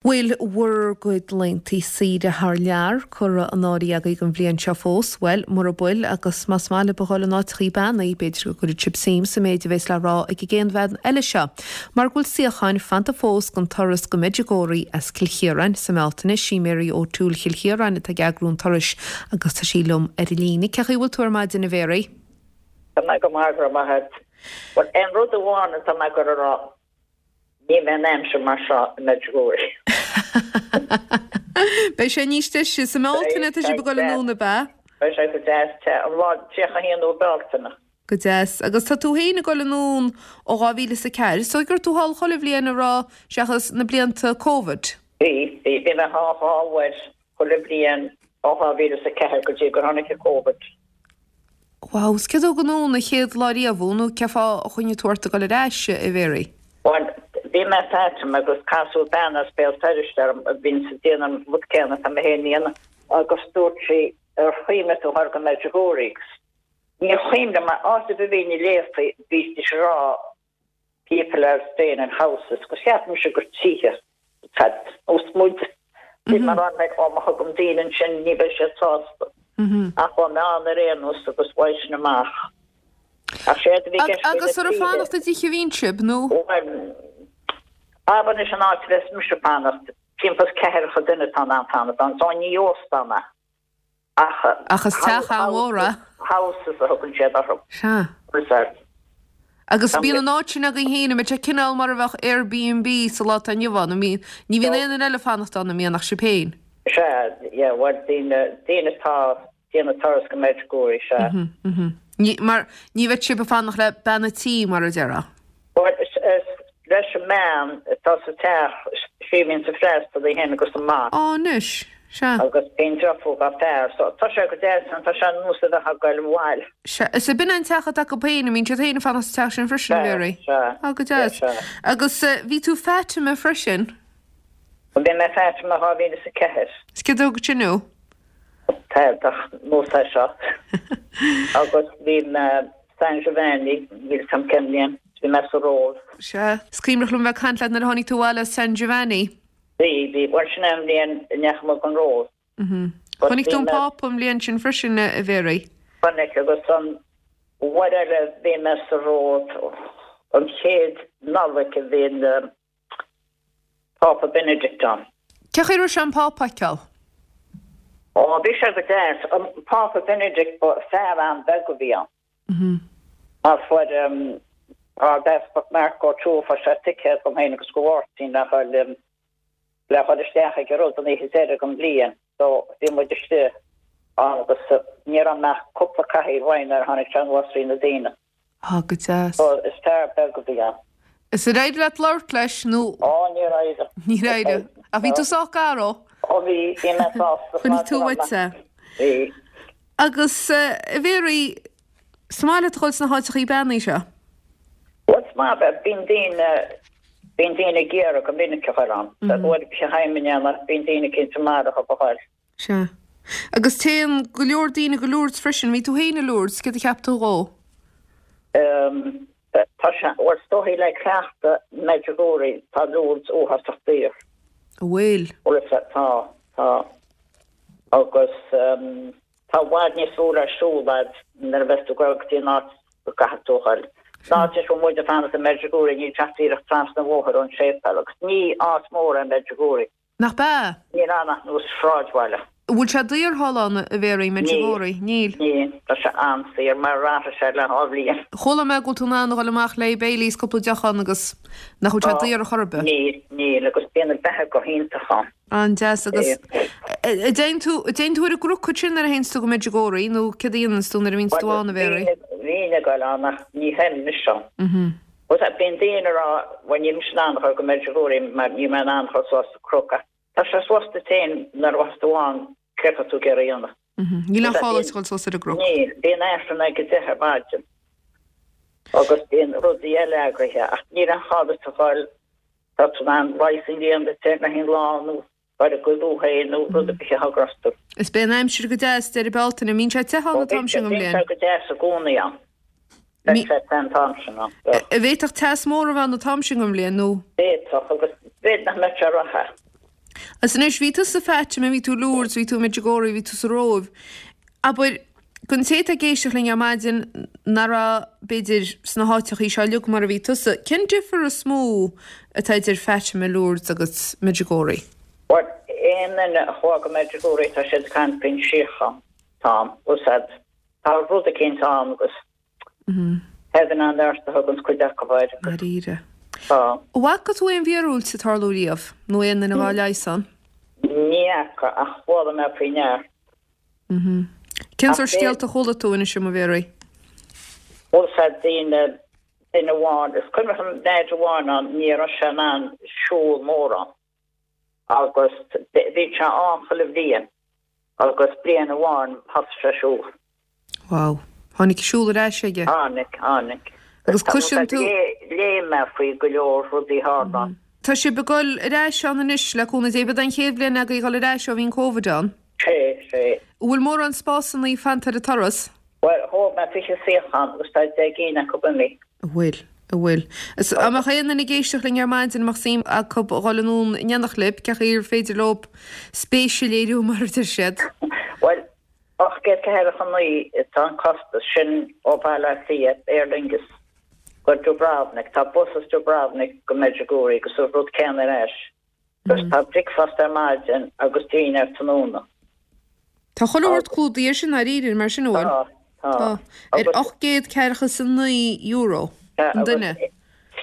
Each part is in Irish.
Bhfuil bhur gcuid laethanta saoire thar lear curtha in áirithe agaibh don bhliain seo fós? Bhuel, mura bhfuil, agus más maith libh a dhul in áiteachaí beannaithe, b'fhéidir go gcuirfidh sibh suim sa méid a bhéas le rá ag an gcéad bhean eile seo. Mar go bhfuil suíocháin fanta fós don turas go Medjugorje as Cill Chiaráin sa mBealtaine, sí Mary O'Toole Chill Chiaráin atá ag eagrú an turais agus tá sí liom ar an líne. Cén chaoi a bhfuil tú ar maidin, a Mhary? Tá mé go maith, go raibh maith agat. Bhuel, aon rud amháin atá mé ag goil a rá, Ní bheidh an aimsir mar seo i Medjugorje. Beidh sé níos deise. Sa mBealtaine tá sibh ag dul anonn, ab ea? Beidh sé go deas te. An lá 31 Bealtaine. Go deas. Agus tá tú féin ag dul anonn ó 2004. Is dóigh go raibh tú thall chuile bhliain a raibh, seachas na blianta Covid. Bhí, bhí. Bhí mé thall dhá uair chuile bhliain ó 2004 go dtí gur tháinig an Covid. Wow, 's céard a thug anonn an chéad lá riamh thú nó cén fáth a choinnigh tú ort ag dul ar ais, a Mhary? Bhuel, bhí mé i Fatima agus casadh bean as Béal Feirste orm a bhíonns ag déanamh an rud céanna atá mé féin a dhéanamh agus dúirt sí ar chuimhnigh tú dhul go Medjugorje agus níor chuimhnigh mé, áit ar bith a bhínn ag léamh faoi bhídís ag rá people are staying in houses agus cheap mise gur tithe atá nós muid. Bhí mé ag rá like ó má thugaim daoine ansin ní bheidh siad sásta. Ach chuaigh mé ann ar aon nós agus bhain sin amach. Ach séard a bhí i gceist faoi na Agus ar fanacht i dtithe a bhíonn sibh nó? Bhuel, abair anois an áit a bheas mise ag fanacht, timpeall is ceathracha duine atá in ann fanacht ann, so ní óstán é. Ach. Ach is teach an-mhór é. Houses a thugann siad orthu. Sea. Reserve. Agus bíonn an áit sin agaibh féin, an mbeidh sé cineál mar a bheadh Airbnb sa lá atá inniu ann, an mbíonn, ní bhíonn aon duine eile ag fanacht ann, an mbíonn, ach sibh féin? Sea, yeah, bhuel, daoine, daoine atá ag déanamh turas go Medjugorje, sea. Mhm, mhm. Ní, mar, ní bheidh sibh ag fanacht le bean a' tí, mar a déarfá. Bhuel, is leis an mbean atá sa teach, sí a bhíonns ag freastal, í féin agus a mac. Á, anois, sea. Agus bíonn deirfiúr dá fear, so tá sé go deas ann, tá sé ar nós a bheith ag goil abhaile. Sea, is ab in an teach atá acu féin, an mbíonn siad féin ag fanacht sa teach sin freisin, a Mhary? Sea, sea. Á, go deas. Sea, sea. Agus bhí tú Fatima freisin? Bhí mé Fatima 2004. Is céard a thug sin thú? Tá nós é seo. Agus bhí mé San Giovanni, níl 'fhios a'm cén bhliain, bhí mé sa Róimh. Sea. Is cuimhneach liom bheith ag caint leat nuair a tháinig tú abhaile as San Giovanni. Bhí, bhí. Bhuel sin é an bhliain a ndeachaigh muid gon Róimh. Mhm. Chonaic tú an Pápa an bhliain sin freisin, a Mhary? Chonaic agus an uair eile bhí mé sa Róimh, an chéad Nollaig a bhí an Pápa Benedict ann. Cén chaoi a raibh sé an Pápa a fheiceáil? Ó, bhí sé go deas. An Pápa Benedict, ba fear an-bheag a bhí ann. Mar fuair an tArdeaspag Mark O'Toole, fuair sé ticéad dom féin agus do Mháirtín le dhul le dhul isteach ag an rud an oíche deiridh den bhliain. So, bhí muid istigh ann agus ní raibh ach cúpla cathaoir uainn nuair a tháinig sé anuas trí na daoine. Á, go deas. So, is fear beag a bhí ann. Is ar éirigh leat labhairt leis nó? Ó, níor éirigh. Níor éirigh. Ach bhí tú sách gar dó? Ó, bhí, bhí mé sásta. Chonaic tú uait é. Bhí. Agus, a Mhary, is maith leat a dhul sna háiteachaí beannaithe seo? Bhuel, is maith, bíonn daoine, bíonn daoine ag iarraidh go minic a dhul ann. Bhuel, bhí feidhm a ndéanamh, bíonn daoine cinnte maith a dhul. Sea. Agus téann go leor daoine go Lourdes freisin. Bhí tú féin i Lourdes, céard a cheap tú dhó? Em, tá sé, bhuel, is dóichí le cleachtadh Medjugorje, tá Lourdes uafásach daor. An bhfuil? Bhuel, tá, tá. Agus em, tá i bhfad níos lú le siúl a'd nuair a bheas tú ag dul go dtí an áit go gcaithfidh tú a dhul. An áit a bhfuil muid ag fanacht i Medjugorje, níl sé ach díreach trasna an bhóthair ón séipéal agus ní áit mhór é Medjugorje. Nach b'ea? Níl ann ach nós sráidbhaile. An bhfuil sé daor thall ann, a Mhéaraí, Medjugorje? Níl. Níl. Tá sé an-saor, mar athraigh sé le dhá bhliain. Chuala mé go bhfuil tú in ann a dhul amach le Baileys, cúpla deoch ann agus nach bhfuil sé daor ar chor ar bith. Níl, níl, agus bíonn an beatha go hiontach ann. An-deas agus an dtéann tú, an dtéann tú ar an gcnoc ansin nuair a théanns tú go Medjugorje nó céard a dhéananns tú nuair a bhíonns tú ann, a Mhéaraí? Bhínn ag dul ann ach ní théim anois ann. Bhuel, bíonn daoine ag rá, bhuel níl mise in ann a dhul go Medjugorje mar níl mé in ann a dhul suas an cnoc ach tá sé suas duit féin nuair a bheas tú ann céard tá tú ag iarraidh a dhéanamh. Níl aon chall duit a dhul suas ar an gcnoc. Níl, bíonn Aifreann ag a deich ar maidin agus bíonn rudaí eile eagraithe ach níl aon chall duit a dhul, tá tú in ann leigheas a dhéanamh duit féin le haon lá nó Ar a gcuid thú féin nó rud ar bith a thagras tú. Is beidh an aimsir go deas deireadh Bealtaine. An mbíonn sé te ann an t-am sin den bhliain? Bíonn sé go deas i gcónaí ann. Beidh sé te an t-am sin ann. An bhféadfadh teas mór a bheith ann an t-am sin den bhliain nó? Bhféadfadh agus b'fhéidir nach mbeadh sé ró-the. Agus anois, bhí tú sa Fatima, bhí tú i Lourdes, bhí tú i Medjugorje, bhí tú sa Róimh. Abair, don té atá ag éisteacht linn ar maidin nach raibh, b'fhéidir, sna háiteachaí seo uilig mar a bhí tusa, cén difear is mó atá idir Fatima, Lourdes agus Medjugorje? Bhuel, aon duine a chuaigh go Medjugorje tá siad ag caint faoin síocháin atá ann. Bhfuil 's a'd, tá rud eicínt ann agus Heaven on earth a thuganns cuid acu air. Dáiríre. Tá. An bhfaca tú aon mhíorúilt ag tarlú riamh, nó aon duine dhá leigheas ann? Ní fhaca, ach chuala mé faoi neart. Cén sórt scéalta a chuala tú, inis dom, a Mhéaraí? Bhfuil 's a'd daoine, duine amháin, is cuimhin liom leaid amháin ann, ní raibh sé in ann siúl mórán. Agus bhí sé ann chuile bhliain agus bliain amháin thosaigh sé ag siúl. Wow. Tháinig an siúl ar ais aige? Tháinig, tháinig. Agus cloiseann tú. Léigh mé faoi go leor rudaí a tharla ann. Tá sibh ag dul ar ais ann anois le cúnamh Dé. B'é an chéad bhliain agaibh a dhul ar ais ó bhí an Covid ann? Sé, sé. An bhfuil mórán spásannaí fanta ar an turas? Bhuel, thóg mé 20 suíochán agus tá 10 gcinn acu imithe. An bhfuil, an bhfuil. Is dá mbeadh aon duine ag éisteacht linn ar maidin, a mbeadh suim acu a dhul anonn in éineacht libh, cén chaoi ar féidir leo spéis a léiriú mar a deir siad? Bhuel, 849 atá an costas, sin ó Bhaile Átha Cliath, Aer Lingus, go Dubrovnik. Tá bus as Dubrovnik go Medjugorje agus an rud céanna ar ais. Agus tá bricfeasta ar maidin agus dinnéar tráthnóna. Tá chuile shórt clúdaithe sin dáiríre mar sin, an bhfuil? Tá, tá. Tá. Ar €849 an duine. Agus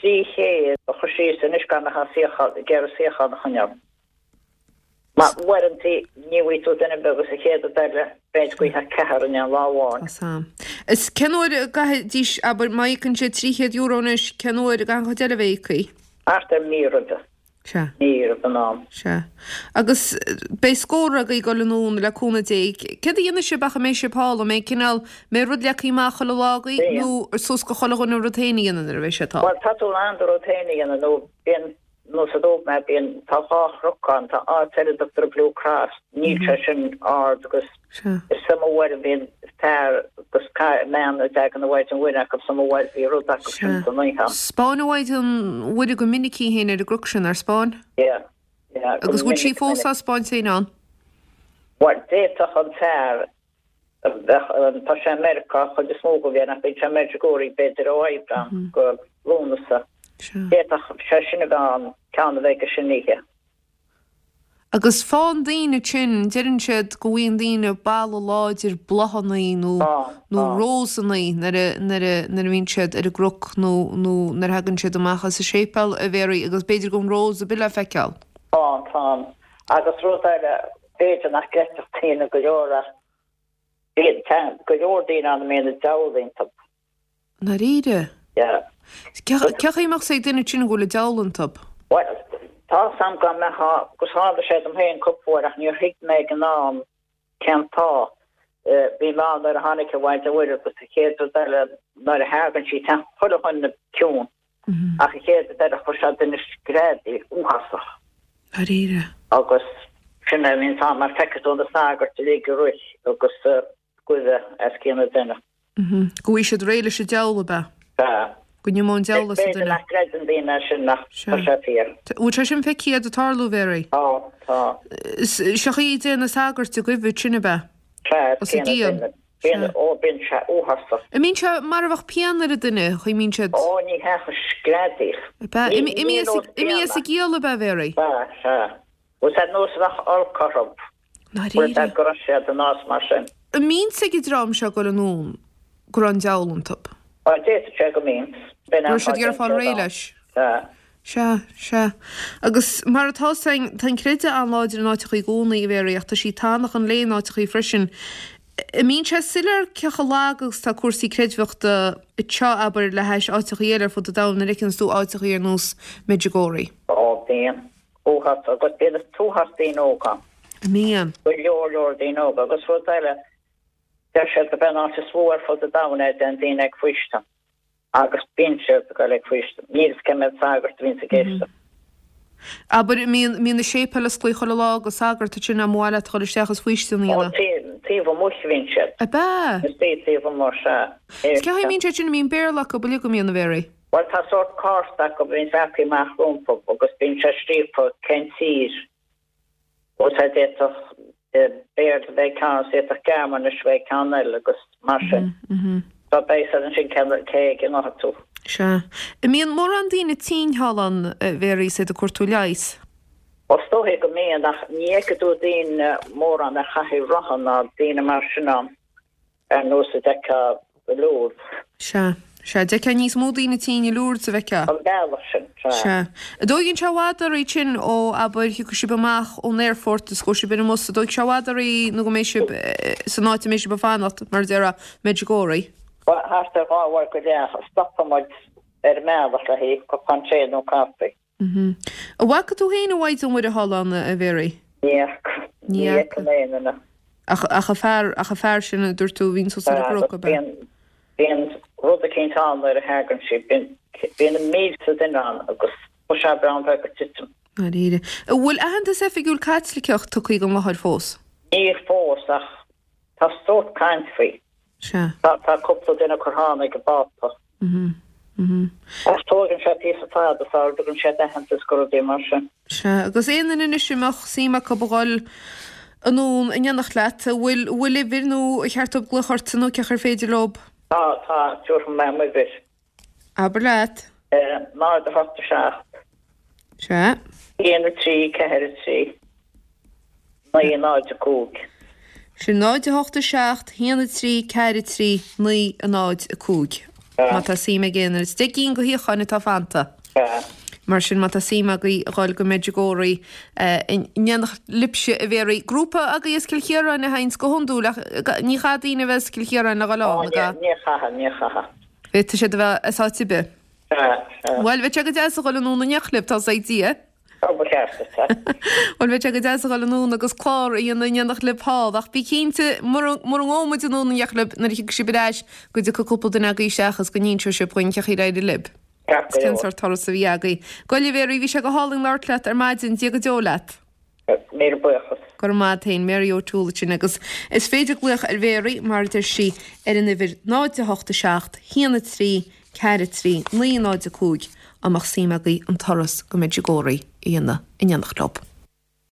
300 a chur síos anois gan ach suíochán, ag iarraidh suíochán a choinneáil. Mar uaireantaí ní bhfaighidh tú duine ar bith agus an chéad rud eile b'fhéidir go bhfaighfeá ceathrar in aon lá amháin. Tá sam. Is cén uair a gcaithfidís, abair, má íocann siad €300 anois, cén uair a gcaithfidh an chuid eile a bheith íoctha? Thart ar mí roimhe. Sea. Ní raibh in am. Sea. Agus beidh scór agaibh ag dul anonn le cúnamh Dé. Céard a dhéanfaidh sibh ach a mbeidh sibh thall? An mbeidh cineál, an mbeidh rud leagtha amach chuile lá agaibh Bíonn. nó suas go chuile dhuine a rud féin a dhéanamh nuair a bheidh siad thall? Bhuel, tá tú in ann do rud féin a dhéanamh nó bíonn, nós a dúirt mé, bíonn, tá dhá chnoc ann, tá áit eile a dtugtar Blue Cross, níl sé sin ard agus Sea. is iomaí uair a bhíonn fear agus bean a dtagann an Mhaighdean Mhuire acu is iomaí uair bhí rud acu sin Sea. san oíche ann. 'Spáin an Mhaighdean Mhuire go minic í féin ar an gcnoc sin, ar 'spáin? Yeah, yeah, go Agus bhfuil sí minic, fós minic. á 'spáint féin ann? Bhuel, d'fhéadfadh an fear a bheadh, tá sé i Meiriceá an chuid is mó den bhliain ach bíonn sé i Medjugorje b'fhéidir ó Aibreán go Lúnasa. Sea. D'fhéadfadh sé sin a bheith ann, ceann a bheith aige sin oíche. Agus faigheann daoine ansin, deireann siad go bhfaigheann daoine boladh láidir bláthannaí nó nó rósannaí nuair a nuair a nuair a bhíonn siad ar an gcnoc nó nó nuair a thagann siad amach as an séipéal, a Mhéaraí, agus b'fhéidir go bhfuil an rós ar bith le feiceáil. Tá, tá. Agus rud eile, b'fhéidir nach gcreidfeadh daoine go leor ach bíonn, tá go leor daoine ann a mbíonn an diabhal iontu. Ndáiríre? Yeah. Cén chaoi a mbeadh 's ag duine ansin go bhfuil an diabhal iontu? Bhuel, tá 's a'm go mbeadh, agus tharla sé dom féin cúpla uair ach níor thuig mé ag an am cén fáth. Bhí mé ann nuair a tháinig an Mhaighdean Mhuire agus an chéad rud eile nuair a thagann sí téann chuile dhuine ciúin ach an chéad rud eile chuir sé duine screadaíl uafásach. Dáiríre. Agus sin é a bhíonn ann mar feicfidh tú na sagairt uilig ag rith agus goimh as cionn an duine. Go bhfaighidh siad réidh leis an diabhal, ab ea? Sea. Go n-imeodh an diabhal as an B'fhéidir duine. nach gcreideann daoine é sin ach tá sé fíor. Bhfuil sé sin feicthe agat ag tarlú, a Mhéaraí? Tá, tá. Seo chaoi a dtéann na sagairt ag goimh ansin, ab ea? Sea, Os a céanna gcionn. duine. Bíonn, ó, bíonn sé uafásach. An mbíonn sé mar a bheadh pian ar an duine, chaoi mbíonn siad. Ó, ní hea, ach screadaíl. Ab ea? Imí as a gciall, ab ea, a Mhéaraí? Sea, sea. Bhfuil sé nós a bheadh olc orthu. Ndáiríre. Bhfuil go raibh siad in áit mar sin. An mbíonn 's ag an dream seo ag dul anonn go raibh an diabhal iontu? Bhuel, d'fhéadfadh sé go mbíonn. Go raibh siad ag iarraidh fáil réidh leis. Sea. Sea, sea. Agus mar atá 's againn, tá an creideamh an-láidir in áiteachaí i gcónaí, a Mhéaraí, ach tá sí tánach an lae in áiteachaí freisin. An mbíonn sé soiléir cé chomh lag agus atá cúrsaí creidmheachta anseo, abair, le hais áiteachaí eile ar fud an domhain, nuair a fheiceanns tú áiteachaí ar nós Medjugorje? Ó, bíonn. Uafás agus bíonn an t-uafás daoine óga ann. Mbíonn. Go leor leor daoine óga agus rud eile, deir siad gurb é an áit is mó ar fud an domhain é a dtéann daoine ag faoistin agus bíonn siad ag dul ag faoistin. Níl 'fhios cé mhéad sagart a bhíonns ag éisteacht. Abair, mbíonn, mbíonn na séipéil osclaithe chuile lá do sagart ansin dá mba mhaith leat a dhul isteach is faoistin a Ó, dhéanamh. taobh amuigh a bhíonn siad. Ab ea? Istigh taobh amuigh, sea. Is cén chaoi a mbíonn siad sin, an mbíonn Béarla acu uilig an mbíonn, a Mhéaraí? Bhuel, tá sórt cárta acu a bhíonns leagtha amach rompu agus bíonn sé scríofa cén tír. D'fhéadfadh Béarla a bheith ag ceann agus d'fhéadfadh Gearmáinis a bheith ag ceann eile agus mar sin. So beidh a fhios agat ansin cé ag a ngabhfaidh tú. Sea. An mbíonn mórán daoine tinn thall ann, a Mhéaraí, is iad ag cuartú leighis? Ó is dóiche go mbíonn ach ní fheicfidh tú daoine mórán ar chathaoir rotha ná daoine mar sin ann. Ar nós a d'fheicfeá i Lourdes. Sea. Sea. D'fheicfeá níos mó daoine tinn i Lourdes a bhfeicfeá. An bealach sin. Sea. Sea. An dtóigeann sé i bhfad oraibh ansin ó, abair, thiocfaidh sibh amach ón aerfort is gabhfaidh sibh ar an mbus, an dtógfaidh sé i bhfad oraibh nó go mbeidh sibh san áit a mbeidh sibh ag fanacht, mar a déarfá, Medjugorje? Bhuel, thart ar dhá uair go leath. Stopann muid ar an mbealach le haghaidh cupán tae nó caife. An bhfaca tú féin an Mhaighdean Mhuire thall ann, a Mhéaraí? Ní fhaca. Ní fhaca mé aon duine. Ach, ach an fear, ach an fear sin a dúirt tú a bhíonn suas ar an gcnoc, ab ea? Bíonn, bíonn rud eicínt ann nuair a thagann sí. Bíonn, bíonn na mílte duine ann agus tá sé breá bheith ag titim. Dáiríre. An bhfuil aitheantas oifigiúil Caitliceach tugtha don láthair fós? Níl fós ach tá sórt caint faoi. Sea. Tá cúpla duine curtha ann ag an bPápa. Ach tógann sé píosa fada sara dtugann siad aitheantas do rudaí mar sin. Sea, agus aon duine anois a mbeadh suim acu a dhul anonn in éineacht leat, an bhfuil, an bhfuil uimhir nó ar cheart dóibh glaoch ortsa nó cén chaoi ar féidir leob? Tá, tá, tabharfaidh mé m'uimhir. Abair leat. 0, 8, 7. Sea. 1, 3, 4, 3, 9, 0, 5. Sin 0, 8, 7, 1, 3, 4, 3, 9, 0, 5. Má tá suim ag aon duine. Is 10 gcinn de shuíocháin atá fanta. Sea. Mar sin, má tá suim agaibh a dhul go Medjugorje in éineacht libhse, a Mhéaraí. Grúpa agaibh as Cill Chiaráin a théanns go hiondúil ach ní chaithfidh daoine a bheith as Cill Chiaráin le dhul ann, an gcaithfidh? Ní chaithfidh, ní chaithfidh. Féadfaidh siad a bheith as áit ar bith. Sea, sea. Bhuel, bheadh sé go deas a dhul anonn in éineacht libh, tá's ag Dia. Ó, ba cheart duit, sea. Bhuel, bheadh sé go deas a dhul anonn agus clár a dhéanamh in éineacht libh thall, ach bí cinnte, mura, mura ngabhfaidh muid anonn in éineacht libh nuair a thiocfaidh sibh ar ais, go dtiocfaidh cúpla duine agaibh isteach agus go n-inseoidh sibh dhuinn cén chaoi ar éirigh libh. Ceart go Cén leor. sórt turas a bhí agaibh. Gabh i leith, a Mhéaraí, bhí sé go hálainn labhairt leat ar maidin, Dia go deo leat. Míle buíochas. Go raibh maith a't féin, Mary O'Toole ansin agus is féidir glaoch ar Mhéaraí, mar a deir sí, ar an uimhir 0 8 7 1 3 4 3 9 0 5 dá mbeadh suim agaibh an turas go Medjugorje a dhéanamh in éineacht leo.